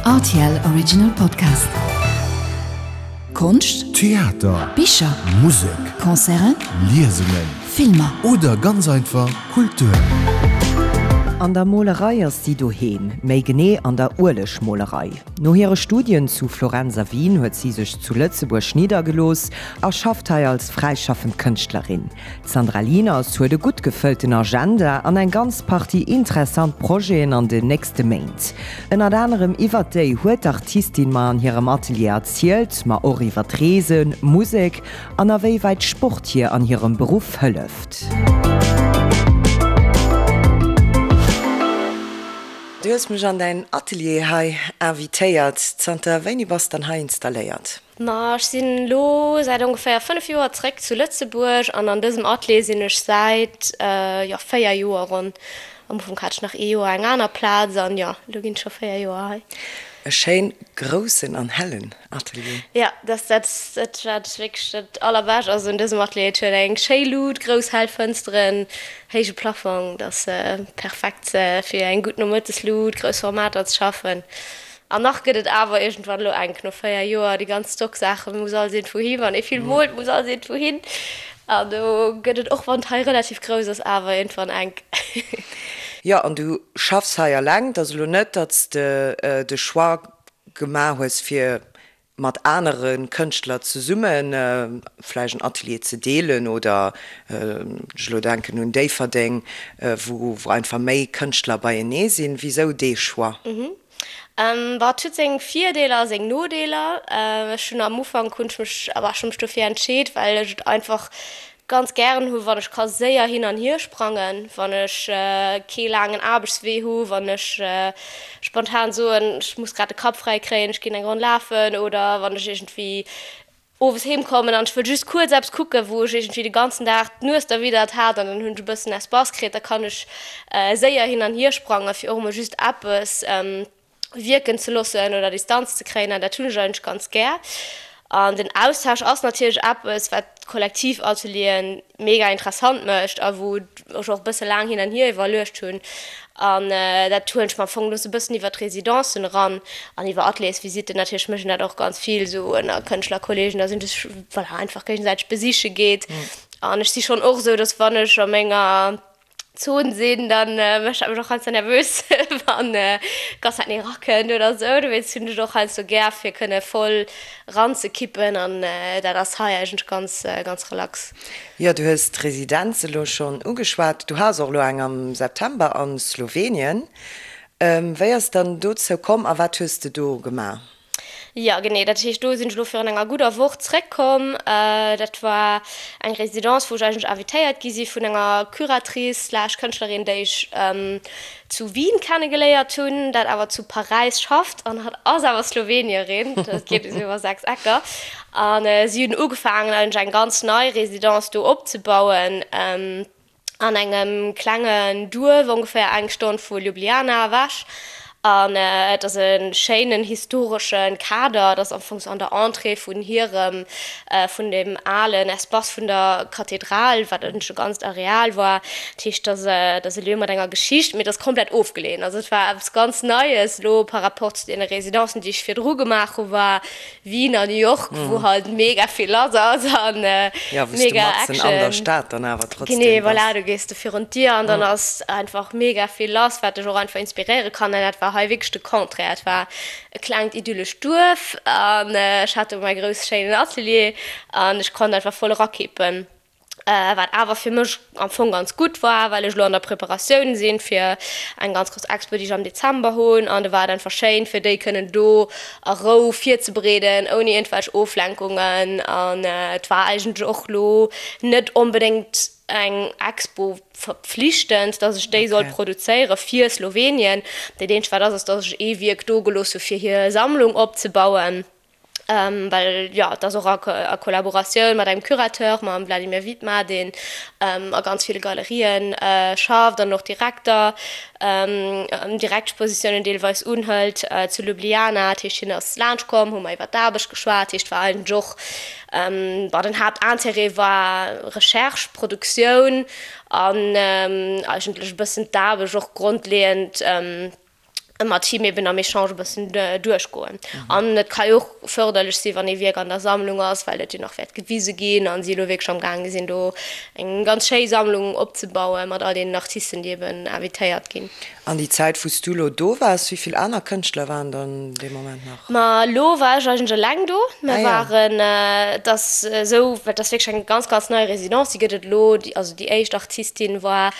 Rtl Original Podcast. Konscht, Theater, Bicher, Musek, Concerten, Liesungen Filmer. oder ganz einfach Kultur. An der Molerei ass si doheem, méi genee an der Uelegmolerei. No hire Studien zu Florenz a Wien huet si sech zu Lëtzebuerg niddergelooss a schafft hei als fräischaffend Kënschtlerin. D'Sandra Lieners huet e gutt gefëllten Agenda an eng ganz Partie interessant Projeten an den nächste Méint. Ënnert anerem iwwert déi huet d'Artistin mer an hirem Atelier erzielt, ma och iwwert Reesen, Musek an a wéi wäit Sport hir an hirem Beruff hëlleft. Du hues mech an däin Atelier hei invitéiert. Zanter wéini bass dann hei installéiert? Ma ech sinn elo säit ongeféier 5 Joer zréck zu Lëtzebuerg an an dësem Atelier sinn ech säit, jo, 4 Joer ronn. Am Ufank hat ech nach ee Joer eng aner Plaz an jo, elo ginn et scho 4 Joer hei. E schéin groussen an hellen Atelier. Jo, dat ass dat wat wierklech dat allerbescht ass un dësem Atelier. Et huet eng schéi Lut, grouss hell Fënsteren, héije Plafong, dat ass perfekt fir eng gutt Nomëtteslut, grouss Formater ze schaffen. An nach gëtt et awer iergendwann elo enk, no 4 Joer, déi ganz Stocksaache muss alles iergendwou hin, wann ee vill moolt, muss alles iergendwou hin. An do gëtt et, och wann et hei relativ grouss ass, awer iergendwann enk. Jo, an du schaffs hei eleng. Et ass elo net, datt s de de Choix gemaach hues, fir mat anere Kënschtler zesumme vläicht en Atelier ze deelen oder, ech elo denken un Déifferdeng, wou einfach méi Kënschtler beienee sinn. Wisou dee Choix? Bon, et huet seng Virdeeler a seng Nodeeler. Ech hunn am Ufank hunn ech mech, awer ech hunn mech dofir entscheet, well ech et einfach ganz gären hu wann ech ka séier hin an hier sprangen, wann ech kee laangen Aarbechtswee hu, wann ech spontan soen, ech muss grad de Kapp fräi kréien, ech ginn eng Ronn lafen oder wann ech iergendwéi owes heem kommen an ech wëll just kuerz eppes kucken, wou ech iergendwéi de ganzen Dag d'Nues derwiddert hat an dann hunn ech e bëssen Espace kritt, da kann ech séier hin an hier sprangen, fir och emol just eppes wierken ze loossen oder Distanz ze kréien an dat hunn ech eigentlech ganz gär. An den Austausch ass natierlech eppes, wat d'Kollektivatelieren mega interessant mécht a wou ech och e bësse laang hin an hier iwwerluecht hunn. An dat huelen ech mer am Fong elo sou e bëssen iwwer d'Residencen eran an iwwer Ateliersvisitten. Natierlech mécht een dat och ganz vill sou ënner Kënschtlerkolleegen, dass een sech, voilà, einfach géigesäiteg besiche geet. An ech si schonn och esou, dass wann ech a menger Zon sinn, dann mécht dat mech och heiansdo nervös, wann d'ganz Zäit nee erakënnt oder esou. Dowéinst hunn ech et och heiansdo gär, fir kënne voll eranzekippen an dat ass hei eigentlech ganz, ganz relax. Jo, du hues d'Residenz elo schonn ugeschwat. Du has och elo eng am September a Slowenien. Wéi ass et dann dozou komm a wat hues de do gemaach? Jo, genee. Dat heescht, do sinn ech elo virun enger gudder Woch zréckkomm. Dat war eng Résidence, wou ech eigentlech invitéiert gi si vun enger Curatrice slash Kënschtlerin, déi ech zu Wien kennegeléiert hunn, dat awer zu Paräis schafft an hatt ass awer Slowenierin. Dat geet esou iwwer 6 Ecker. A si hunn ugefaangen, eigentlech eng ganz nei Résidence do opzebauen. An engem klengen Duerf, ongeféier eng Stonn vu Ljubljana ewech. An et ass e schéinen historesche Kader. Et ass am Fong sou an der Entrée vun hirem, vun deem alen Espace vun der Kathedral, wat eigentlech e ganzt Areal war. Dat heescht, et ass, et ass e Lieu mat enger Geschicht, mee et ass komplett ofgeleeën. Also et war eppes ganz Neies elo par rapport zu deene Residencen, déi ech virdru gemaach hu war. Wien a New York, wou halt mega vill lass ass an Ja, wou s du mega matzen an der Action. Stad dann awer trotzdem Genee, bass. voilà, du gees du virun d'Dier an dann ass einfach mega vill lass, wat dech och einfach inspiréiere kann. An dat war hei wierklech de Contraire. Et war e klengt idyllescht Duerf an ech hat do mäi grousse schéinen Atelier an ech konnt einfach voll erakippen. Wat awer fir mech am Fong ganz gutt war, well ech elo an der Preparatioun sinn fir eng ganz grouss Expo, déi ech am Dezember hunn. An do war et einfach schéin, fir déi kënnen do a Rou virzebereeden, ouni iergendwelch Oflenkungen. An et war eigentlech och elo net onbedéngt eng Expo verpflichtend, dass ech déi sollt produzéiere fir Slowenien. Dat eenzegt wat ass, ass, dass ech ee Wierk do gelooss hu fir hir Sammlung opzebauen. Well jo, et ass och a Kollaboratioun mat engem Curateur, mam Vladimir Vidmar, deen a ganz ville Galerien schafft an och Direkter, Direktpositiounen deelweis unhëlt zu Ljubljana. Dat heescht, hien ass laanscht komm, hu mer iwwer d'Aarbecht geschwat. Dat heescht, war eigentlech och, bon, den Haaptintérêt war Recherche, Produktioun an eigentlech e bëssen d'Aarbecht och grondleeënd. Mat him eben am Echange e bëssen duerchgoen. An et ka jo och fërderlech sinn, wann ee Wierk an der Sammlung ass, well et jo nach wäert gewise ginn a si elo wierklech am gaange sinn, do eng ganz schéi Sammlung opzebauen mat all deenen Artisten, déi eben invitéiert ginn. An déi Zäit, wou s du elo do waars, wéi vill aner Kënschtler waren dann dee Moment nach? Ma elo war ech eigentlech eleng do. Mir waren, et ass esou, well et ass wierklech eng ganz, ganz nei Residence, déi gëtt et elo, also déi éischt Artistin war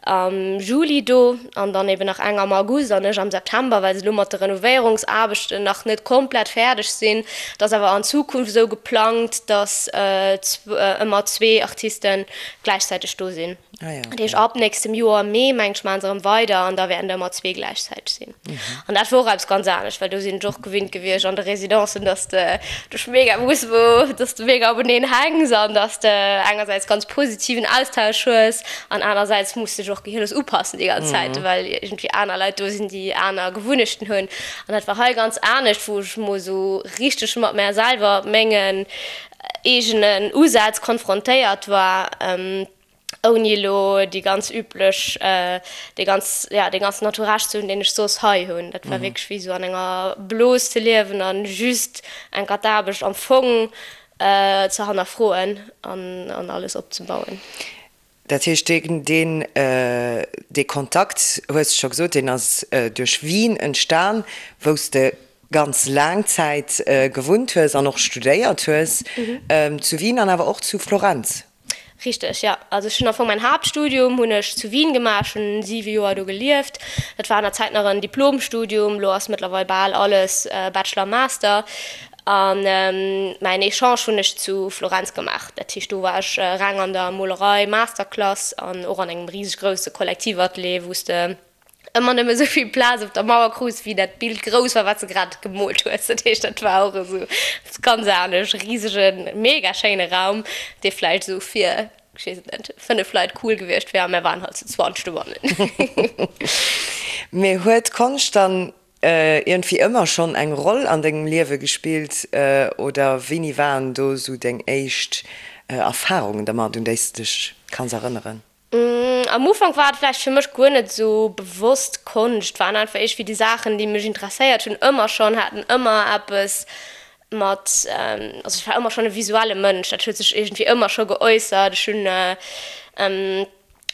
am Juli do an dann eben nach eng am August an ech am September, well se elo mat de Renovéierungsaarbechten nach net komplett fäerdeg sinn. Et ass awer an Zukunft esou geplangt, datt ëmmer zwee Artiste gläichzäiteg do sinn. Dat heescht ab nächstem Joer am Mee, mengen ech, maache se erëm weider an da wäerten der ëmmer zwee gläichzäiteg sinn. An dat wor och eppes ganz anescht, well do sinn ech och gewinnt gewiescht an de Residencen, dass de dech mega muss wou, dass de mega openeen hänks an dass de engersäits ganz positiven Austausch hues an anersäits muss dech och gehirlos upassen déi ganz Zäit, well iergendwéi aner Leit do sinn, déi aner Gewunnechten hunn. An dat war hei ganz anescht, wou ech mol esou richteg mat mär selwer, mengen eegenen Usätz konfrontéiert war. Ouni elo déi ganz üblech, dee ganz, ja, dee ganzen Entourage ze hunn, deen ech soss hei hunn. Dat war wierklech wéi esou an enger Blos ze liewen a just enker d'Aarbecht am Fong ze hannerfroen an an alles opzebauen. Dat heescht, deen, deen, dee Kontakt, hues de scho gesot, deen ass duerch Wien entstan, wou s de ganz laang Zäit gewunnt hues an och studéiert hues, zu Wien an awer och zu Florenz. Richteg, jo. Also ech hunn am Fong mäin Haaptstudium hunn ech zu Wien gemaach, ech hunn 7 Joer do gelieft. Dat war an der Zäit nach en Diplomstudium, elo ass mëttlerweil bal alles Bachelor, Master. A mäin Echange hunn ech zu Florenz gemaach. Dat heescht do war ech reng an der Molerei, Masterclass an och an engem riseg grousse Kollektivatelier, wou s de ëmmer nëmme sou vill Plaz op der Mauer krus, wéi dat Bild grouss war, wat s de grad gemoolt hues. Dat heescht, dat war och esou eppes ganz anescht, e risegen, mega schéine Raum, dee vläicht esou fir, ech weess et net, 5 Leit cool gewiescht wär, a mär waren halt zu 20 dobannen. Mee huet Konscht dann iergendwéi ëmmer schonn eng Roll an dengem Liewe gespillt oder wéini waren do esou deng éischt Erfarungen dermat, un déi s de dech kanns erënneren? Am Ufank war et vläicht fir mech guer net esou bewosst Konscht, waren einfach iergendwéi déi Saachen, déi mech interesséiert hunn ëmmer schonn, haten ëmmer eppes mat, also ech war ëmmer schonn e visuelle Mënsch, dat huet sech iergendwéi ëmmer scho geäussert. Ech hunn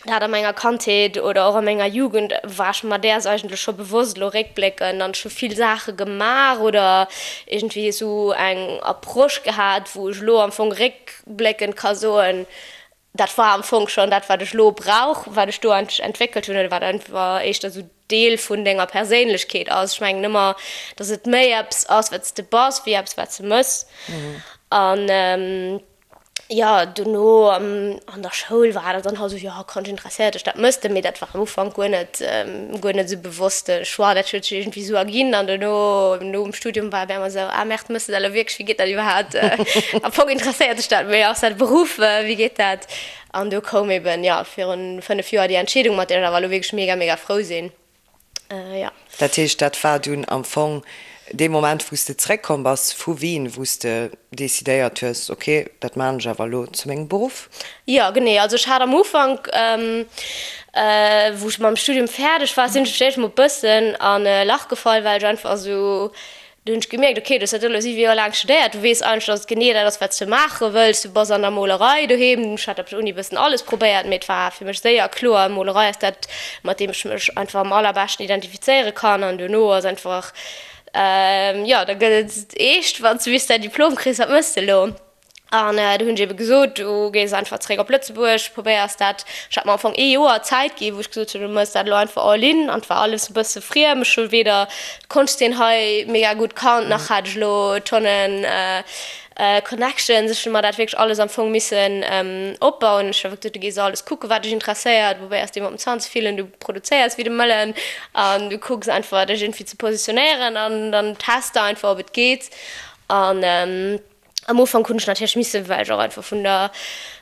dat a menger Kandheet oder och a menger Jugend war ech mer däers eigentlech scho bewosst, elo réckbléckend, an ech hu vill Saache gemaach oder iergendwéi esou eng Approche gehat, wou ech elo am Fong réckbléckend ka soen, Dat war am Fong schonn dat, wat ech elo brauch, wat ech do eigentlech entwéckelt hunn oder wat einfach éischter esou Deel vun denger Perséinlechkeet ass. Ech mengen ëmmer, datt et méi eppes ass, wat s de bass, wéi eppes, wat s de mëss. An jo, dono an der Schoul war dat dann halt esou, jo, Konscht interesséiert dech, dat mëss de. Mee dat war am Ufank guer net, guer net esou bewosste Choix. Dat huet sech iergendwéi esou erginn. An dono, nom Studium war et op eemol esou, ah merde, mëss de dat elo wierklech, wéi geet dat iwwerhaapt? Am Fong interesséiert dech dat, mee ass dat e Beruff, wéi geet dat? An do koum eben, jo, virun 5 Joer déi Entscheedung, mat där ech awer elo wierklech mega, mega frou sinn, jo. Dat heescht, dat war dunn am Fong dee Moment, wou s de zeréckkomm bass vu Wien, wou s de decidéiert hues, ok, dat maan ech awer elo zu mengem Beruff? Jo, genee. Also ech hat am Ufank, wou ech mam Studium fäerdeg war, sinn ech fir d'éischt mol e bëssen an e Lach gefall, well ech einfach esou Do hunn ech gemierkt, ok, du hues dat elo 7 Joer laang studéiert, du weess eigentlech, dass et genee dat ass, wat s du maache wëlls, du bass an der Molerei doheem. Ech hat op der Uni e bëssen alles probéiert, mee et war fir mech séier kloer, Molerei ass dat, mat deem ech mech einfach am allerbeschten identifizéiere kann. An duerno ass einfach, jo, da gëtt et eescht, wann s du bis däin Diplom kriss, wat méchs de elo? An du hunn ech ebe gesot, du gees einfach zeréck op Lëtzebuerg, probéiers dat. Ech hat mer am Fong ee Joer Zäit gi wou ech gesot hunn, du méchs dat elo einfach all in. An et war alles e bësse friem. Ech hu weder d'Konschtzeen hei mega gutt kannt, nach hat ech elo Tonnen Connections. Ech hu mer dat wierklech alles am Fong missen opbauen. Ech hu einfach gesot, du gees alles kucken, wat dech interesséiert, probéiers deem op den Zant ze fillen, du produzéiers wéi de Mëllen an du kucks einfach dech iergendwéi ze positionéieren an dann test de einfach, ob et geet. An Am Ufank hunn ech natierlech missen, well ech och einfach vun der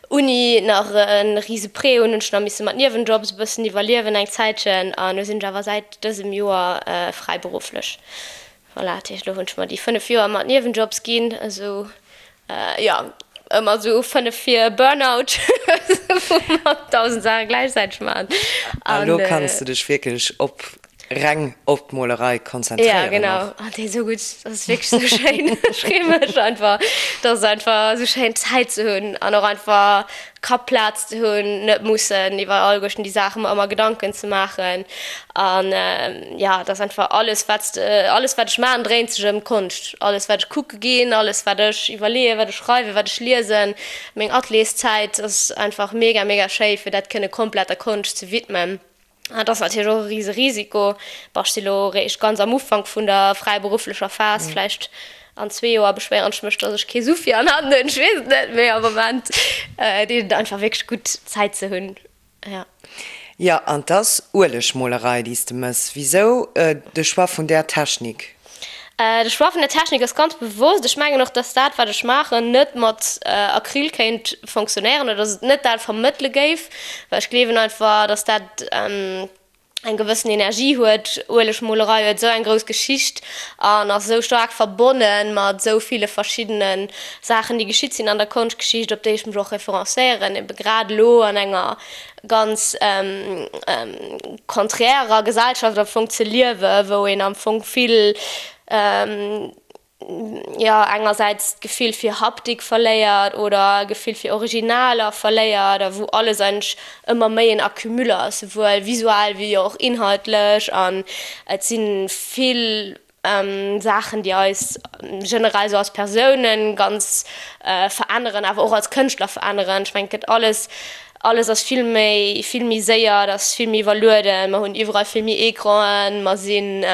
Uni nach e rise Prêt hunn, hunn ech nach misse mat Niewenjobs e bëssen iwwerliewen eng Zäitchen. An elo sinn ech awer säit dësem Joer fräiberufflech. Voilà, dat heescht elo hunn ech mer déi 5 Joer mat Niewenjobs ginn, esou jo, ëmmer esou 5 fir Burnout, wou mer 1.000 Saache gläichzäiteg maachen. A lo kanns de dech wierklech op. Reng op d'Molerei konzentréieren och. Ja genau, an déi esou gutt, dat ass wierklech esou schéin. Ech freeë mech einfach, dat ass einfach esou schéin Zäit ze hunn an och einfach Kappplaz ze hunn, net mussen iwwer alleguerten déi Saache mer ëmmer Gedanken ze maachen. An ja, et ass einfach alles wat s de, alles wat ech maachen dréint sech ëm Konscht. Alles wat ech kucke ginn, alles wat ech iwwerleeën, wat ech schreiwen, wat ech liesen, meng Atelierszäit ass einfach mega mega schéi fir dat kënne komplett der Konscht ze widmen. Dat ass natierlech och e rise Risiko. Bon, ech si lo eréischt ganz am Ufank vun der fräiberufflecher Phas. Vläicht an zwee Joer beschwéieren ech mech, datt ech kee Su fir an Hand hunn. Ech weess et net, mee am Moment deet et einfach wierklech gutt, Zäit ze hunn. Jo. Jo, an 't ass Uelegmolerei, déi s de mëss. Wisou de Choix vun där Technik? De Choix vun der Technik ass ganz bewosst. Ech mengen och, dass dat, wat ech maachen, net mat Acryl kéint fonctionnéieren oder dass et net dat vermëttele géif, well ech gleewen einfach, dass dat eng gewëssen Energie huet. Uelegmolerei huet esou eng grouss Geschicht an ass esou staark verbonne mat esou ville verschiddene Saachen, déi geschitt sinn an der Konschtgeschicht, op déi ech mech och referencéieren, ebe grad elo an enger ganz konträrer Gesellschaft am Fong ze liewen, wou een am Fong vill, jo, engersäits d'Gefill fir Haptik verléiert oder Gefill fir Originaler verléiert a wou alles eigentlech ëmmer méi en Accumul ass, souwuel visuell wéi och inhaltlech an et si vill Saachen, déi eis generell esou als Persounen ganz veränneren, awer och als Kënschtler veränneren. Ech mengen, et gëtt alles, alles ass vill méi, vill méi séier, et ass vill méi iwwerlueden, mer hunn iwwerall vill méi Ecranen, mer sinn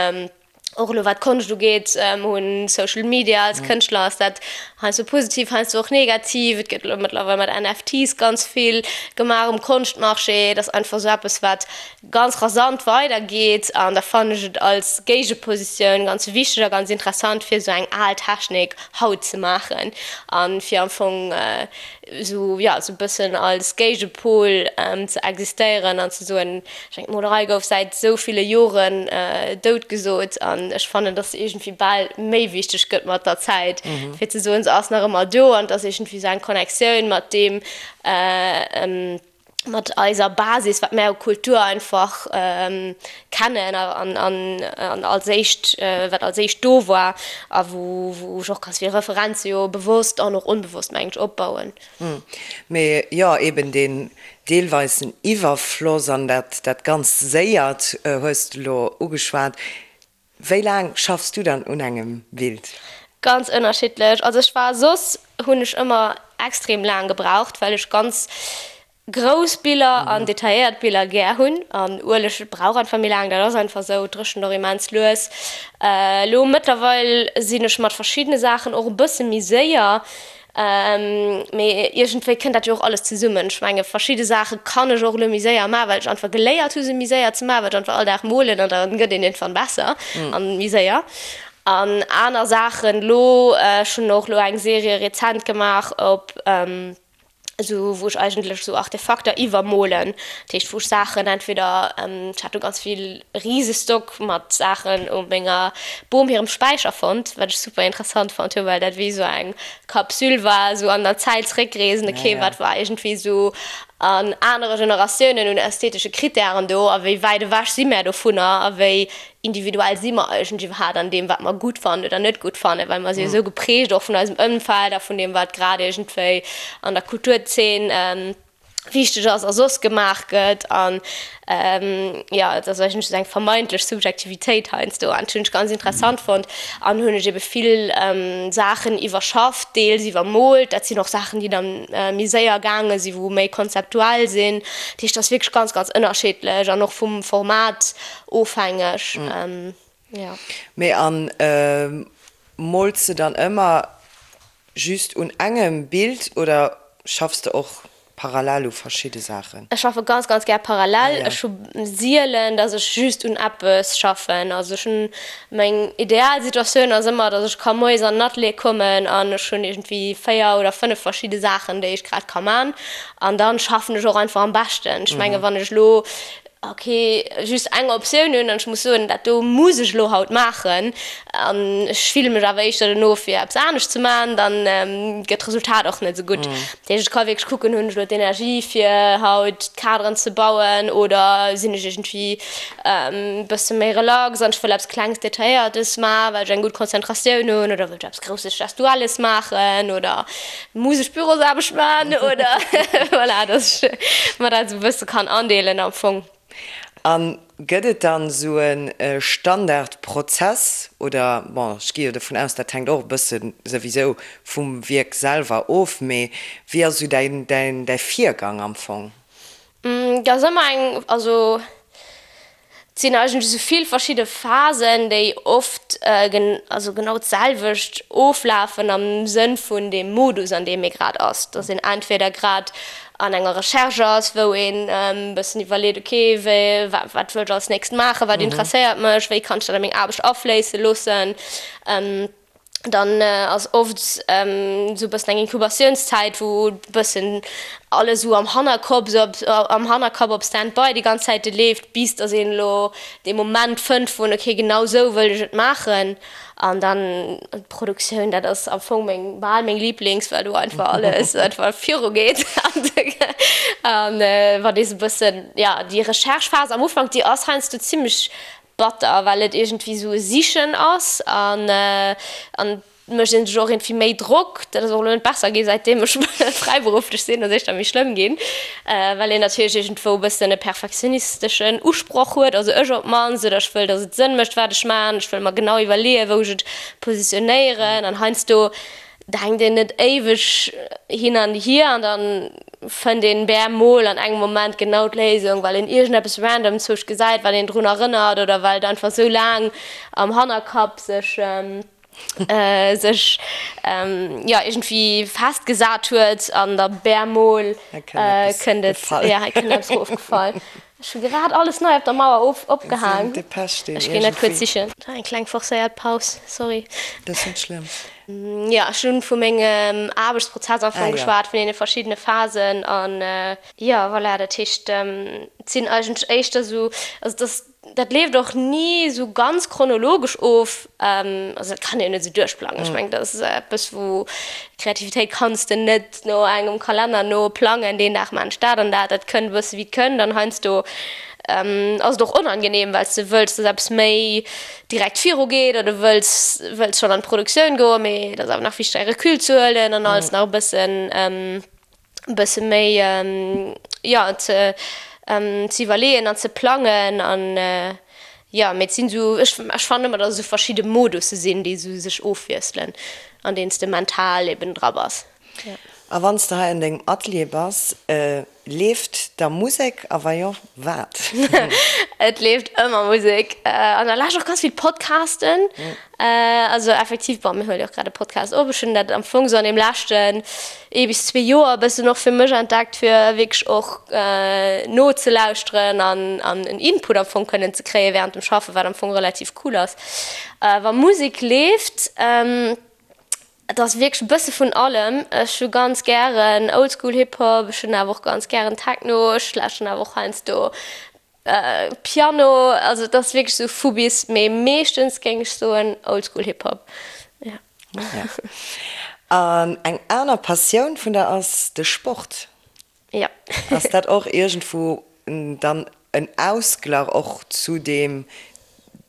och elo wat d'Konscht ugeet, mer hunn Social Media, als Kënschtler ass dat heiansdo positiv, heiansdo och negativ. Et gëtt elo mëttlerweil mat NFTs ganz vill gemaach um Konschtmarché. Et ass einfach esou eppes, wat ganz rasant weider geet an da fannen ech et als Géigepositioun ganz wichteg a ganz interessant fir esou eng al Technik haut ze maachen an fir am Fong esou jo esou e bëssen als Géigepol ze existéieren an ze soen, ech mengen d'Molerei gouf säit esou ville Joren dout gesot an ech fannen dass se iergendwéi bal méi wichteg gëtt mat der Zäit fir ze soen se ass nach ëmmer do an et ass iergendwéi esou eng Connectioun mat deem mat eiser Basis, wat mär u Kultur einfach kennen an als éischt, wat als éischt do war a wou ech och ganz vill Referenze jo bewosst an och onbewosst, mengen ech, opbauen. Mee jo, eben deen deelweisen Iwwerfloss an dat dat ganz Séiert hues de elo ugeschwat. Wéi laang schaffs du dann un engem Bild? Ganz ënnerschiddlech. Also ech war soss hunn ech ëmmer extrem laang gebraucht, well ech ganz grouss Biller an detailléiert Biller gär hunn an Ueleg brauch einfach méi laang, dat ass einfach esou, et dréchent och immens lues. Elo mëttlerweil sinn ech mat verschiddene Saachen och e bësse méi séier, Mee iergendwéi kënnt dat jo och alles zesummen. Ech menge verschidde Saache kann ech och elo méi séier maachen, well ech einfach geléiert hu se méi séier ze maachen, well ech einfach all Dag molen an da gëtt een iergendwann besser an méi séier. An aner Saachen elo, ech hunn och elo eng Serie rezent gemaach op esou wou ech eigentlech esou Artefakter iwwermolen. Dat heescht wou ech Saachen entweder, ech hat do ganz vill Risestock mat Saachen u menger Bom hirem Späicher fonnt, wat ech super interessant fonnt hu, well dat wéi esou eng Kapsül war, esou an der Zäit zréckreesen, okay, wat war iergendwéi esou an anere Generatiounen un ästhetesche Krittären do a wéi wäit ewech si mär dovunner a wéi individuell si mer eigentlech iwwerhaapt an deem, wat mer gutt fannen oder net gutt fannen, well mer si jo esou geprägt och vun eisem Ëmfeld a vun deem, wat grad iergendwéi an der Kulturzeen wichteg ass a soss gemaach gëtt an jo et ass eigentlech esou eng vermeintlech Subjektivitéit heiansdo an dat hunn ech ganz interessant fonnt an hunn ech ebe vill Saachen iwwerschafft, deels iwwermoolt. Dat sinn och Saachen déi dann méi séier gaange sinn, wou méi konzeptuell sinn. Dat heescht, dat ass wierklech ganz, ganz ënnerschiddlech an och vum Format ofhängeg, jo. Mee an mools de dann ëmmer Just un engem Bild oder schaffs de och parallel u verschidde Saachen? Ech schaffe ganz ganz gär parallel. Ech hu sielen, dass ech just un eppes schaffen. Also ech hunn, meng ideal Situatioun ass ëmmer, dass ech ka moies an den Atelier kommen an ech hunn iergendwéi 4 oder 5 verschidde Saachen, déi ech grad ka man. An dann schaffen ech och einfach am beschten. Ech menge wann ech elo. Ok, just eng Optioun hunn an ech muss soen, dat do muss ech elo haut maachen an ech fille mech awer éischter dono fir eppes anescht ze maachen, dann gëtt d'Resultat och net esou gutt. Dat heescht, ech ka wierklech kucken, hunn ech elo d'Energie fir haut d'Kaderen ze bauen oder sinn ech iergendwéi e bësse méi relax an ech wëll eppes Klengs Detailléiertes maachen, well ech eng gutt Konzentratioun hunn oder wëll ech eppes Grousses Gestuelles maachen oder Muss ech Bürosaarbecht man oder voilà, dass ech mer dat esou e bësse kann andeelen am Fong. A gëtt et dann esou e Standardprozess oder, bon, ech gi jo dovun aus, dat hänkt och e bësse souwisou vum Wierk selwer of, mee wéi ass esou däin, däin, däi Virgang am Fong? Et ass ëmmer eng, also et sinn eigentlech esou vill verschidde Phasen, déi oft also genau d'selwecht oflafen am Sënn vun deem Modus, an deem ee grad ass. Dass een entweder grad an enger Recherche ass, wou een e bëssen iwwerleet, ok, wéi, wat wëll ech als nächst maachen, wat interesséiert mech, wéi kann ech dat a meng Aarbecht afléisse loossen. Dann ass oft esou e bëssen eng Inkubatiounszäit, wou e bëssen alles esou am Hannerkopp, esou am Hannerkapp op Stand-by déi ganz Zäite leeft, bis datt een elo dee Moment fënnt vun, okay, genau esou wëll ech et maachen. An dann d'Produktioun, dat ass am Fong meng, bal meng Liiblings, well do einfach alles einfach virugeet. An wann ee sou e bëssen, jo, déi Recherche-Phas am Ufank, déi ass heiansdo zimmlech Batter, well et iergendwéi esou e Sichen ass an an et mécht een sech och iergendwéi méi Drock. Dat ass och elo net besser gi säitdeem ech fräiberufflech sinn, ass éischter méi schlëmm ginn, well een natierlech iergendwou e bëssen e perfektionisteschen Usproch huet, also ech op d'mannst, oder ech wëll, datt et Sënn mécht wat ech maachen, ech wëll mer genau iwwerleeën, wou ech et positionéieren an heiansdo denkt een net éiweg hin an hier an dann fënnt een bemol an engem Moment genau d'Léisung, well een iergendeppes random zwousch gesäit, wat een drun erënnert oder well et einfach sou laang am Hannerkapp sech sech jo iergendwéi festgesat huet an da bemol kënnt et, jo hei kënnt eppes erofgefall. Ech hu grad alles nei op der Mauer of opgehaang. Ech ginn dat kuerz sichen. Eng kleng forcéiert Paus, sorry. Dat ass net schlëmm. Jo, ech hunn vu mengem Aarbechtsprozess am Fong geschwat, vun deene verschiddene Phasen an jo, voilà, dat heescht, et sinn eigentlech éischter esou, also et ass, dat leeft och ni esou ganz chronologesch of, also dat kann een net esou duerchplangen. Ech mengen, dat ass eppes, wou Kreativitéit kanns de net no engem Kalenner no plangen, deen Dag maan ech dat an dat. Dat kënnt e bësse wéi et kënnt an heiansdo ass et och onangenehm, well s de wëlls, dass eppes méi direkt viru geet oder du wëlls wëlls schonn an d'Produktioun goen, mee et ass awer nach wichteg e Recul ze huelen an alles nach e bëssen e bësse méi jo ze ze iwwerleeën an ze plangen an jo mee et sinn esou ech ech fannen ëmmer datt esou verschidde Modusse sinn déi esou sech ofwiesselen an deenen s de mental eben dra bass. A wann s de hei an dengem Atelier bass, leeft da Musek a wa jo, wat? Et leeft ëmmer Musek an da lauschteren och ganz vill Podcasten. Also effektiv, bon, mir huele jo och grad e Podcast op. Ech hunn dat am Fong esou an deem leschten ee bis zwee Joer e bëssen och fir mech entdeckt, fir wierklech och nozelauschteren an an en Input am Fong kënnen ze kréie wärend dem Schaffen, wat am Fong relativ cool ass. Wa Musek leeft, et ass wierklech e bësse vun allem. Ech hu ganz gären Oldschool Hip Hop, ech hunn awer och ganz gären Techno, ech lauschteren awer och heiansdo Piano, also et ass wierklech sou vu bis, mee meeschtens géing ech soen Oldschool Hip Hop, jo. An eng aner Passioun vun der ass de Sport. Jo. Ass dat och iergendwou dann en Ausglach och zu deem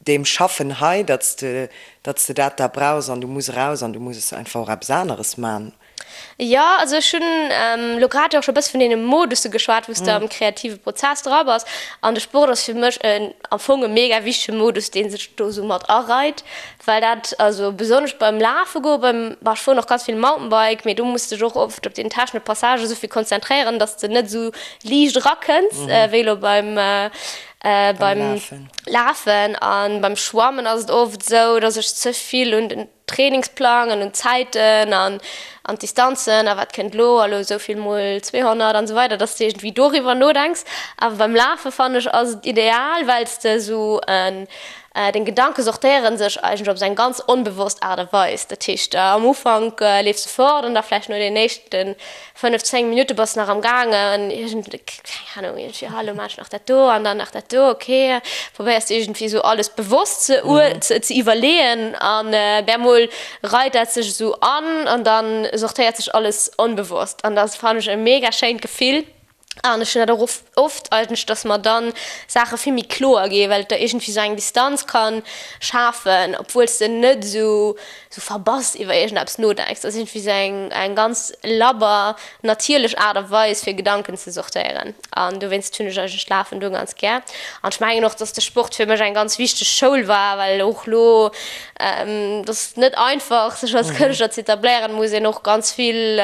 deem Schaffen hei, datt s de datt s de dat da brauchs an du muss eraus an du muss einfach och eppes aneres man? Jo, also ech hunn elo grad jo och scho e bësse vun deene Modusse geschwat, wou s de am kreative Prozess dra bass. An de Sport ass fir mech en am Fong e mega wichtege Modus, dee sech do esou mat areit, well dat, also besonnesch beim Lafe goen, beim, bah, ech fueren och ganz vill Mountainbike, mee do muss de dech och oft op den technesche Passage esou vill konzentréieren, datt s de net esou liicht erakënns wéi elo beim, beim Lafen. A beim Schwammen ass et oft esou, datt ech ze vill un den Trainingsplang an un d'Zäiten an an d'Distanzen a wat kënnt elo a lo esou vill mol 200 an esou weider, dass de iergendwéi doriwwer nodenks. Awer beim Lafe fannen ech ass et ideal, well s de esou en. Deng Gedanke sortéiere sech eigentlech op esou eng ganz onbewosst Aart a Weis. Dat heescht, am Ufank leefs de fort an da vläicht no den éischte 5, 10 Minutte bass de nach am gaangen iergend, keng Ahnung, iergendwéi, ah, elo maachen ech nach dat do an dann nach dat do, okay. Probéiers de iergendwéi esou alles bewosst ze ze iwwerleeën an bemol reit dat sech esou an an da sortéiert sech alles onbewosst an dat fannen ech e mega schéint Gefill. An ech hunn dat och oft eigentlech, dass mer dann Saache vill méi kloer ginn, well et der iergendwéi esou eng Distanz ka schafen, obwuel s de net esou esou verbass iwwer iergendeppes nodenks. Dat ass iergendwéi esou eng eng ganz labber, natierlech Aart a Weis, fir Gedanken ze sortéieren. An dowéinst hunn ech eigentlech d'Lafen do ganz gär. An ech mengen och, dass de Sport fir mech eng ganz wichteg Schoul war, well och elo, et ass net einfach, sech als Kënschtler ze etabléieren, muss een och ganz vill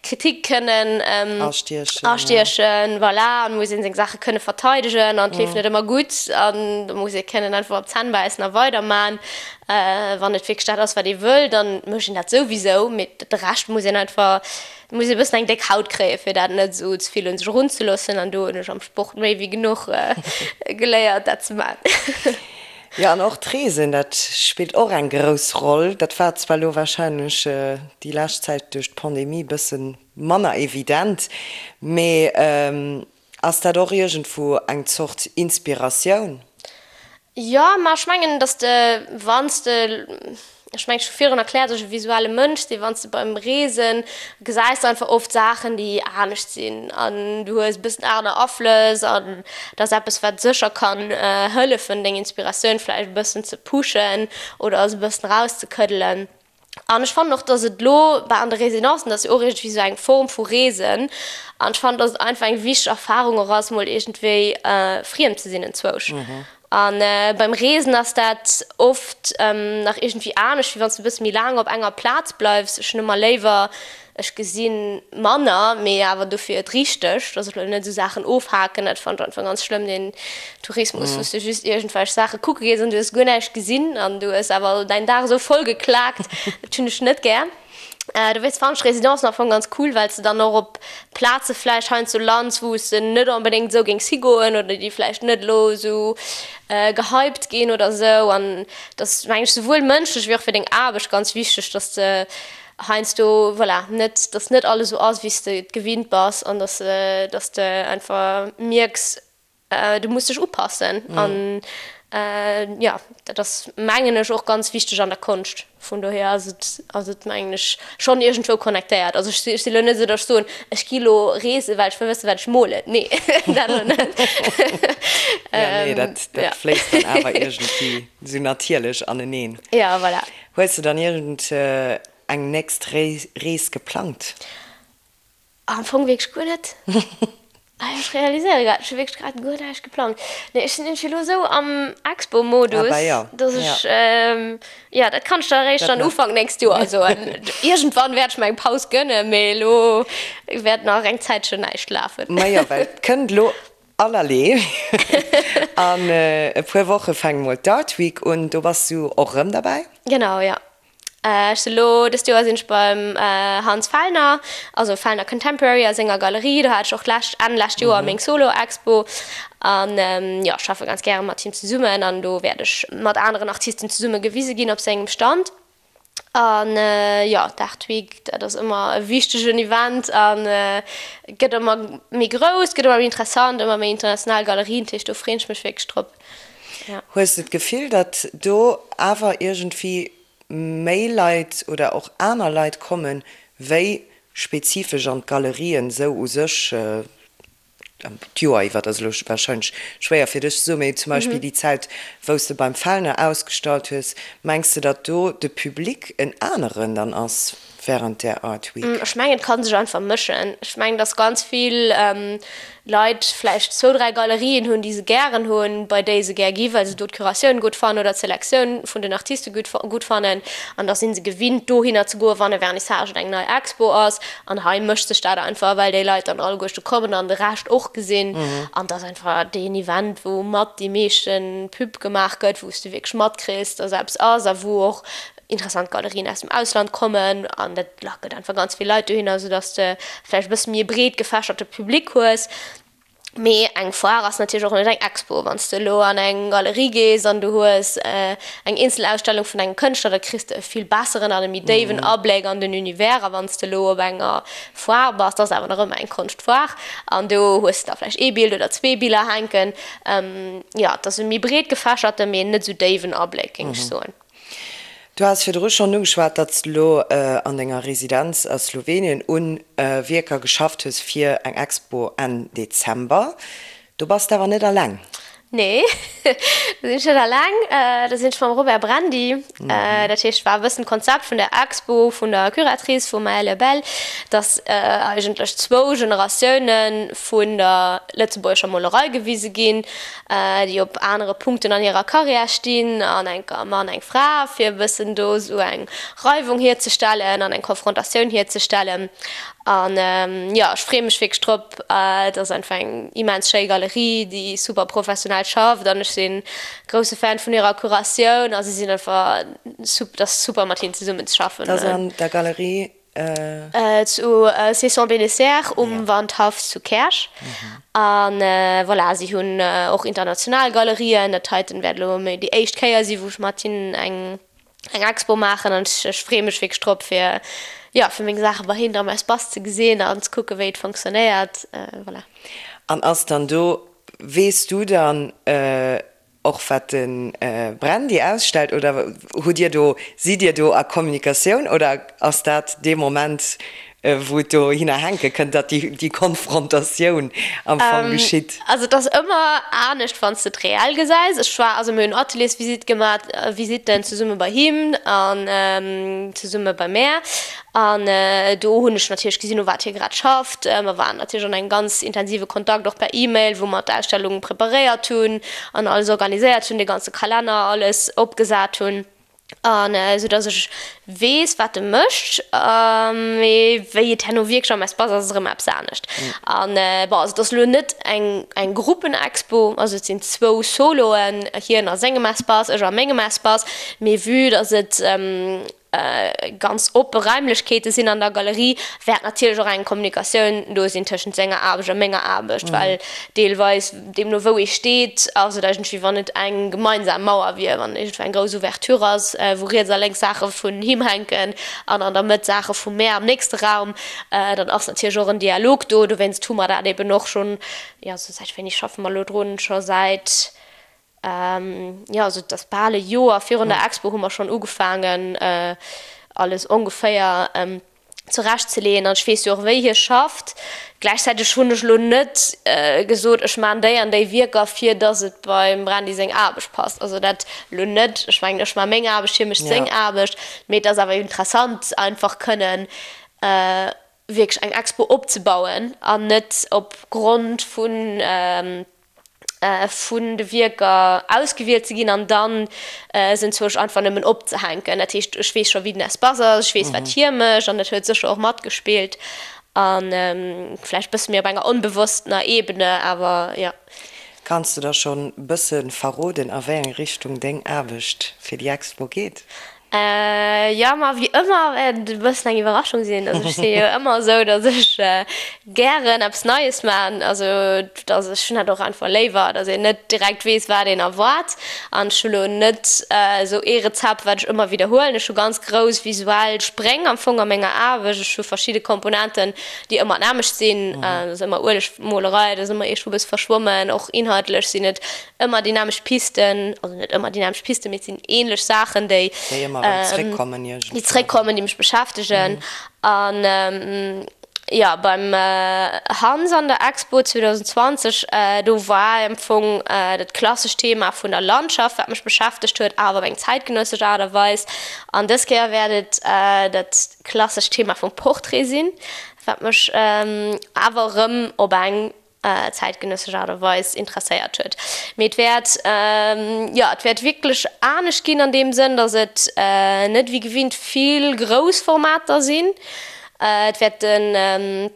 Kritik kënnen astiechen, voilà, an muss een seng Saache kënne verteidegen an et leeft net ëmmer gutt an da muss ee kënnen einfach op d'Zänn bäissen a weiderman. Wann et wierklech dat ass, wat ee wëll, dann mécht een dat souwisou, mee de Rescht muss een einfach, muss ee bëssen eng déck Haut kréien, fir dat net esou ze vill un sech erunzeloossen an do hunn ech am Sport méi wéi genuch geléiert, dat ze man. Jo, an och d'Reesen, dat spillt och eng grouss Roll. Dat war zwar elo warscheinlech déi lescht Zäit duerch d'Pandemie bësse manner evident, mee ass dat och iergendwou eng Zort Inspiratioun? Jo, ma ech mengen, datt de, wann s de Ech mengen, ech hu virun erkläert, dass ech e visuelle Mënsch sinn. Wann s de beim Reesen gesäis de einfach oft Saachen, déi anescht sinn an du hues e bëssen aner Aflëss an dat ass eppes, wat sécher kann hëllefen, deng Inspiratioun vläicht e bëssen ze pushen oder se e bëssen erauszekëddelen. An ech fannen och, dass et elo bah an de Residencen, dat ass jo och iergendwéi esou eng Form vu Reesen an ech fannen, dass et einfach eng wichteg Erfarung och ass, mol iergendwéi friem ze sinn enzwousch. A beim Reesen ass dat oft nach iergendwéi anescht, wéi wann s de e bësse méi laang op enger Plaz bleifs. Ech hunn ëmmer léiwer, ech gesi manner, mee awer dofir et richteg, dass ech elo net esou Saachen ofhaken. Dat fannen ech einfach ganz schlëmm, deen Tourismus, wou s de just iergendwelch Saache kucke gees an du hues guer näischt gesinn an du hues awer däin Dag esou voll geklaakt. Dat hunn ech net gär. Dowéinst fannen ech Residencen am Fong ganz cool, well s de dann och op Plaze vläicht heiansdo lands, wou s de net onbedéngt esou géings higoen oder déi vläicht net elo esou gehypt ginn oder esou. An et ass, mengen ech, souwuel mënschlech wéi och fir deng Aarbecht ganz wichteg, dass de heiansdo, voilà, net, dass net alles esou ass, wéi s de et gewinnt bass an dass, dass de einfach mierks, Du muss dech upassen an jo, dat ass mengen ech och ganz wichteg an der Konscht. Vun dohier ass et ass et mengen ech schonn iergendwou connectéiert. Also ech si lo net esou, datt ech soen, ech gi lo reesen, well ech wëll wëssen, wat ech molen. Nee, dat elo net. Jo, nee, dat dat fléisst dann awer iergendwéi esou natierlech aneneen. Jo, voilà. Hues de dann iergend eng nächst Rees geplangt? Am Fong wierklech guer net. Ech realiséiere grad, ech hu wierklech grad guer näischt geplangt. Nee, ech sinn iergendwéi elo esou am Expo-Modus, dass ech, jo, dat kann ech der eréischt dann Ufank nächst Joer soen. Iergendwann wäert ech mer eng Paus gënnen, mee elo wäert nach eng Zäitchen näischt lafen. Majo, well et kënnt elo allerlee. An e puer Woche fänkt mol d'Art Week un, do bass du och erëm derbäi? Genau, jo. Ech si lo, dëst Joer sinn ech beim Hans Fellner, also Fellner Contemporary a senger Galerie. Do hat ech och d'lescht, Enn lescht Joer meng Solo-Expo. An jo, ech schaffe ganz gäre mat him zesummen an do wäert ech mat aneren Artisten zesumme gewise ginn op sengem Stand. An jo, d'Art Week, dat ass ëmmer e wichtegen Event a gëtt ëmmer méi grouss, gëtt ëmmer méi interessant, ëmmer méi international Galerien, dat heescht do freen ech mech wierklech drop. Hues de d'Gefill, datt do awer iergendwéi méi Leit oder och aner Leit kommen, wéi spezifesch an d'Galerien esou u sech d'Joer iwwer? Dat ass elo warscheinlech schwéier fir dech ze soen, mee zum Beispill déi Zäit, wou s de beim Fellner ausgestallt hues, mengs de, datt do de Public en aneren dann ass während där Art Week? Ech mengen, et ka sech einfach mëschen. Ech mengen, datt ganz vill Leit vläicht zwou, dräi Galerien hunn, déi se gären hunn, bei déi se gär gi well se do d'Curatioun gutt fannen oder d'Selektioun vun den Artiste gutt gutt fannen. An da si se gewinnt, dohinner ze goen, wann e Vernissage oder eng nei Expo ass. An hei mëscht sech dat einfach, well déi Leit dann alleguerste kommen an de Rescht och gesinn. An et ass einfach deen Event, wou mat déi meeschte Pub gemaach gëtt, wou s de wierklech matkriss, dass eppes ass a wou och interessant Galerien aus dem Ausland kommen an dat lackelt einfach ganz vill Leit dohinner, soudass de vläicht e bësse méi e breet gefächerte Public hues. Mee eng Foire ass natierlech och net eng Expo. Wann s de elo an eng Galerie gees an du hues eng Eenzelausstellung vun engem Kënschtler, da kriss de e vill besseren an e méi déiwen Abléck an den Univers. A wann s de elo op enger Foire bass, dat ass awer nach ëmmer eng Konschtfoire, an do hues de da vläicht ee Bild oder zwee Biller hänken. Jo, et ass e méi breet gefächerte, mee net esou déiwen Abléck, géing ech soen. Du has virdru schonn ugeschwat, datt s de elo an denger Residenz a Slowenien un Wierker geschafft hues fir eng Expo Enn Dezember. Do bass de awer net alleng. Nee, do sinn ech net alleng. Do sinn ech mam Robert Brandy. Dat heescht, war e bëssen d'Konzept vun der Expo vun der Curatrice, vum Maëlle Bell, datt eigentlech zwou Generatioune vun der lëtzebuergescher Molerei gewise ginn. déi op anere Punkten an hirer Karriär stinn, an enker e Mann, eng Fra, fir e bëssen do esou eng Reiwung hierzestellen an eng Konfrontatioun hierzestellen. An jo, ech freeë mech wierklech drop. Et ass einfach eng immens schéi Galerie, déi super professionell schafft an ech si grousse Fan vun hirer Curatioun a si sinn einfach, et ass super mat hinnen zesummen ze schaffen. Dat ass an der Galerie Zu Cesson-Bénézert um Wandhaff zu Käerch. A voilà, si hunn och international Galerien. Dat heiten wäert elo méi déi éischt Kéier si wou ech mat hinnen eng Expo maachen. An ech freeë mech wierklech drop fir, jo, fir meng Saache bei hinnen am Espace ze gesinn an ze kucke wéi et fonctionnéiert. Voilà. An ass dann do, weess du dann, Och wat de Brandy ausstellt, oder hutt Dir do, sidd Dir do a Kommunikatioun oder ass dat dee Moment, wou et dohinner hänke kënnt, datt déi Konfrontatioun am Fong geschitt? Also et ass ëmmer anescht, wann s de et reell gesäis. Ech war, also mir hunn Ateliersvisite gemaach, Visitten zesumme bei him an zesumme bei mär. An do hunn ech natierlech gesinn, u wat hie grad schafft. Mer waren natierlech an engem ganz intensive Kontakt, och per E-Mail, wou mer d'Ausstellung preparéiert hunn an alles organiséiert hunn, de ganze Kalenner, alles opgesat hunn. An esou datt ech weess, wat e mécht. Mee wéi et herno wierklech am Espace ass, ass erëm eppes anescht. An bon, also et ass elo net eng eng Gruppenexpo, also et sinn zwou Soloen, hien a sengem Espace, ech a mengem Espace. Mee vue datt et ganz oppe Raimlechkeete sinn an der Galerie, wäert natierlech och eng Kommunikatioun do sinn tëschent senger Aarbecht a menger Aarbecht, well deelweis, deemno wou ee steet, ass et eigentlech wéi wann et eng gemeinsam Mauer wier, wann iergendwou eng grouss Ouverture ass, wou riets a lénks Saache vun him hänken an an der Mëtt Saache vu mär am nächste Raum, dann ass natierlech och en Dialog do. Dowéinst hu mer dat eben och schonn, jo, säit wéini schaffe mer elo drun? Scho säit Jo, also et ass bal e Joer virun der Expo hu mer schonn ugefaangen, alles ongeféier zurecht ze leeën. An ech weess jo och, wéi hie schafft. Gläichzäiteg hunn ech elo net gesot, ech maachen déi an déi Wierker, fir datt et beim Brandy seng Aarbecht passt. Also dat elo net. Ech mengen, ech maache meng Aarbecht, hie mécht seng Aarbecht. Mee et ass awer interessant, einfach kënnen wierklech eng Expo opzebauen an net op Grond vun vun de Wierker ausgewielt ze ginn an dann se enzwousch einfach nëmmen opzehänken. Dat heescht, ech weess scho wéi den Espace ass, ech weess wat hie mécht an dat huet sécher och matgespillt a vläicht bësse méi op enger onbewosstener Ebene, awer jo. Kanns de da schonn bësse verroden a wéi eng Richtung deng Aarbecht fir déi Expo geet? Jo, ma wéi ëmmer wäert et e bëssen eng Iwwerraschung sinn. Also ech si jo ëmmer esou, datt ech gären eppes Neies maachen. Also datt ech hunn dat och einfach léiwer, datt een net direkt weess, wat een erwaart. An ech hu lo net esou ee Rezept, wat ech ëmmer widderhuelen. Ech hu ganz grouss visuell Spréng am Fong a menger Aarbecht. Ech hu verschidde Komponenten, déi ëmmer d'nämmlecht sinn. Dat ass ëmmer Uelegmolerei, dat ass ëmmer iergendwou e bësse verschwommen. Och inhaltlech sinn et ëmmer déi nämmlecht Pisten, also net ëmmer déi nämmlecht Pisten, mee et sinn ähnlech Saachen, déi Déi ëmmer erëm zréckkommen iergendwann. Déi zréckkommen, déi mech beschäftegen. An jo, beim Hans an der Expo 2020, do war am Fong dat klassescht Thema vun der Landschaft, wat mech beschäftegt huet, awer op eng zäitgenëssesch Aart a Weis. An dës Kéier wäert et dat klassescht Thema vum Portrait sinn, wat mech awer erëm op eng zäitgenëssesch Aart a Weis interesséiert huet. Mee et wäert, jo, et wäert wierklech anescht ginn an deem Sënn, datt et net wéi gewinnt vill grouss Formater sinn. Et wäerte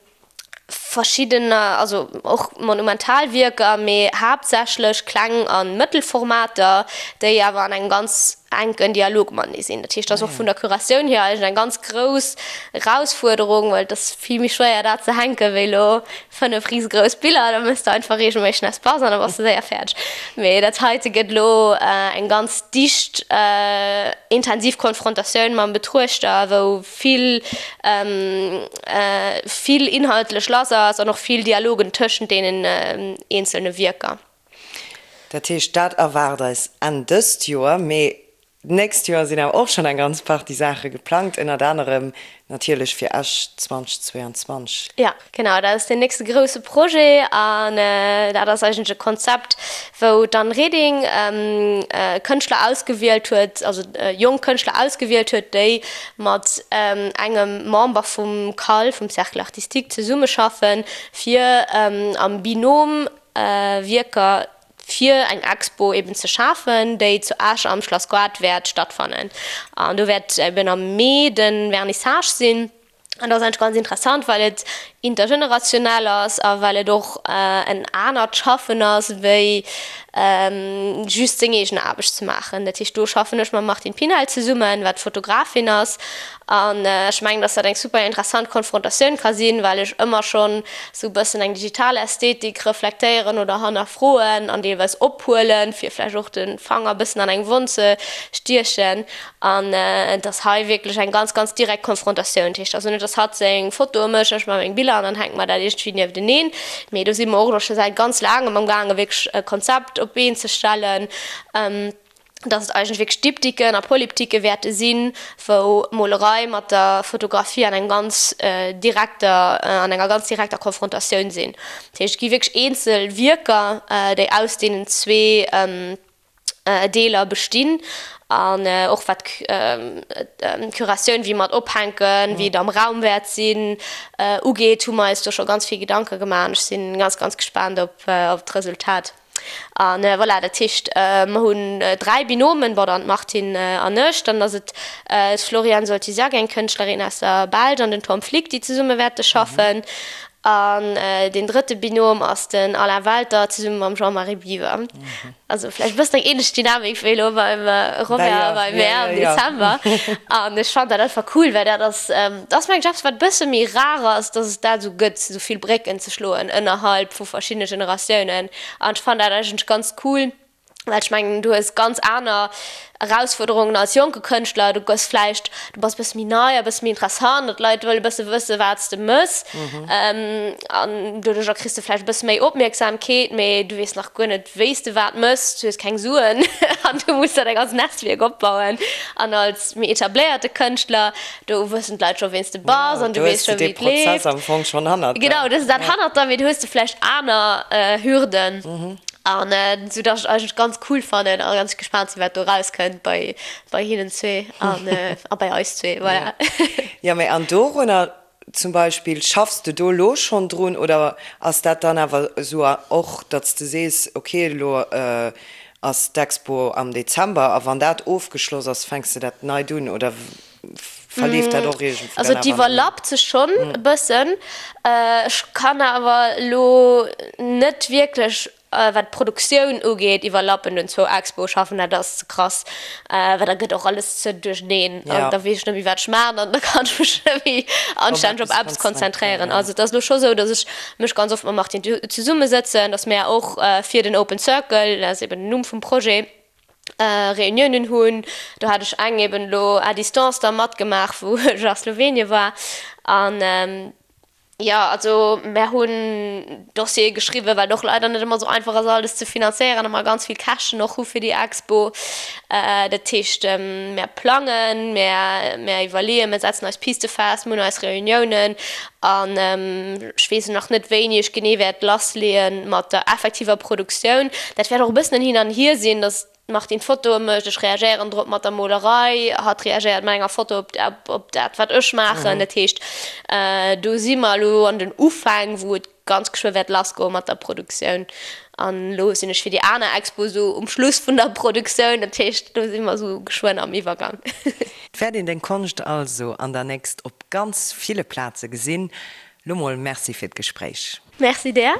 verschiddener, also och monumental Wierker, mee haaptsächlech kleng a mëttel Formater, déi awer an engem ganz. enken Dialog matenee sinn. Dat heescht, dat ass och vun der Curatioun hier eigentlech eng ganz grouss Erausfuerderung, well et ass vill méi schwéier dat ze hänken, wéi elo 5 risegrouss Biller. Da méchs de einfach reegelméisseg en Espace an da bass de séier fäerdeg. Mee dat heite gëtt elo eng ganz dicht, intensiv Konfrontatioun mam Betruechter, wou vill, vill inhaltlech lass ass an och vill Dialogen tëschent deenen eenzelne Wierker. Dat heescht, dat erwaart eis Enn dëst Joer. Mee d'nächst Joer sinn awer och schonn eng ganz Partie Saache geplangt, ënnert anerem natierlech fir Esch 2022. Jo, genau, dat ass deen nächste grousse Projet. An dat ass eigentlech e Konzept, wou d'Anne Reding Kënschtler ausgewielt huet, also jonk Kënschtler ausgewielt huet, déi mat engem Member vum CAL, vum Cercle artistique, zesummeschaffen, fir am Binôme Wierker fir eng Expo eben ze schafen, déi zu Esch am Schlass Goart wäert stattfannen. An do wäert eben am Mee de Vernissage sinn. An dat ass eigentlech ganz interessant, well et intergenerationell ass a well et och en anert Schaffen ass, wéi just seng eegen Aarbecht ze maachen. Dat heescht, do schaffen ech mam Martine Pinel zesummen, wat Fotografin ass. An ech mengen, dass dat eng super interessant Konfrontatioun ka sinn, well ech ëmmer schonn esou e bëssen eng digital Ästhetik reflektéieren oder hannerfroen an deelweis ophuelen, fir vläicht och de Fanger e bëssen an eng Wonn ze stiechen. An et ass hei wierklech eng ganz, ganz direkt Konfrontatioun. Dat heescht also net, dass hatt seng Fotoe mécht, ech maache meng Biller an dann hänke mer dat iergendwéi niefteneen. Mee do si mer och elo scho säit ganz laangem amgaangen, wierklech e Konzept op d'Been ze stellen. dass et eigentlech wierklech Diptyquen a Polyptyque wäerte sinn, wou d'Molerei mat der Fotografie an engem ganz direkter, an enger ganz direkter Konfrontatioun sinn. Dat heescht, et gi wierklech eenzel Wierker, déi aus deenen zwee Deeler bestinn an och wat d'Curatioun, wéi mer et ophänken, wéi et am Raum wäert sinn, ugeet, hu mer eis do scho ganz vill Gedanke gemaach an ech si ganz, ganz gespaant op d'Resultat. A voilà, dat heescht, mer hunn 3 Binomen, bon, dann d'Martine an ech, dann ass et d'Floriane Soltysiak, eng Kënschtlerin aus der Belsch, an den Tom Flick, déi zesumme wäerte schaffen. An deen drëtte Binom ass den Alain Welter zesumme mam Jean-Marie Biwer. Also vläicht e bëssen eng änlech Dynamik wéi elo beim Robert a bei mär am Dezember. An ech fannen dat einfach cool, well dat ass, dat ass mengen ech eppes, wat e bësse méi rar ass, dass et dat esou gëtt, esou vill Brécken ze schloen ënnerhalb vu verschiddene Generatiounen. An ech fannen dat eigentlech ganz cool, well ech mengen, du hues ganz aner Erausfuerderungen als jonke Kënschtler. Du gëss vläicht, du bass e bësse méi nei a e bësse méi interessant an d'Leit wëlle e bësse wësse wat s de mëss. An doduercher kriss de vläicht e bësse méi Opmierksamkeet, mee du weess nach guer net, wéi s de wat mëss, du hues keng Suen an du muss der däi ganzt Netzwierk opbauen. An als méi etabléierte Kënschtler Do wëssen d'Leit scho ween s de bass an du weess scho wéi et leeft. Am Fong schonn hannert der. Genau, du hues dat hannert der, mee du hues du vläicht aner Hürden. An esou datt ech et eigentlech ganz cool fannen a ganz gespaant sinn, wat do erauskënnt bei bei hinnen zwee an a bei eis zwee, voilà. Jo, mee an dorunner zum Beispill, schaffs de do elo schonn drun oder ass dat dann awer esou och, datt s de sees, okay, elo ass d'Expo am Dezember a wann dat ofgeschloss ass, fänks de dat neit un oder verleeft dat och iergendwou Also dann et awer? iwwerlappt sech schonn e bëssen. Ech kann awer elo net wierklech, wat d'Produktioun ugeet, iwwerlappen un zwou Expoe schaffen, dat ass ze krass, well da gëtt och alles ze duercheneen an da weess ech net méi wat ech maachen an da kann ech mech net méi anstänneg op eppes konzentréieren. Also et ass elo scho sou, datt ech mech ganz oft mam Martine zesummesëtzen, datt mär och fir den Open Circle, dat ass eben den Numm vum Projet, Reuniounen hunn. Do hat ech eng eben elo à distance da matgemaach, wou ech a Slowenien war. An jo, also mär hunn Dossiere geschriwwen, well et och leider net ëmmer esou einfach ass alles ze finanzéieren a mer ganz vill Käschten och hu fir déi Expo. Dat heescht, mär plangen, mär mär iwwerleeën, mär setzen eis Piste fest, mir hunn eis Reuniounen An ech weess nach net, wéini ech genee wäert lassleeë mat der effektiver Produktioun. Dat wäert och e bëssen en Hin an Hier sinn, datt d'Martine Fotoe mécht, ech reagéieren drop mat der Molerei, hatt reagéiert mat enger Foto op dat, wat ech maachen. Dat heescht, do si mer elo an den Ufäng, wou et ganz geschwë wäert lassgoe mat der Produktioun. An elo sinn ech fir déi aner Expo esou um Schluss vun der Produktioun. Dat heescht, do si mer esou geschwënn am Iwwergang. Et wäert een deng Konscht also an der nächst op ganz ville Plaze gesinn. Lo mol Merci fir d'Gespréich. Merci där.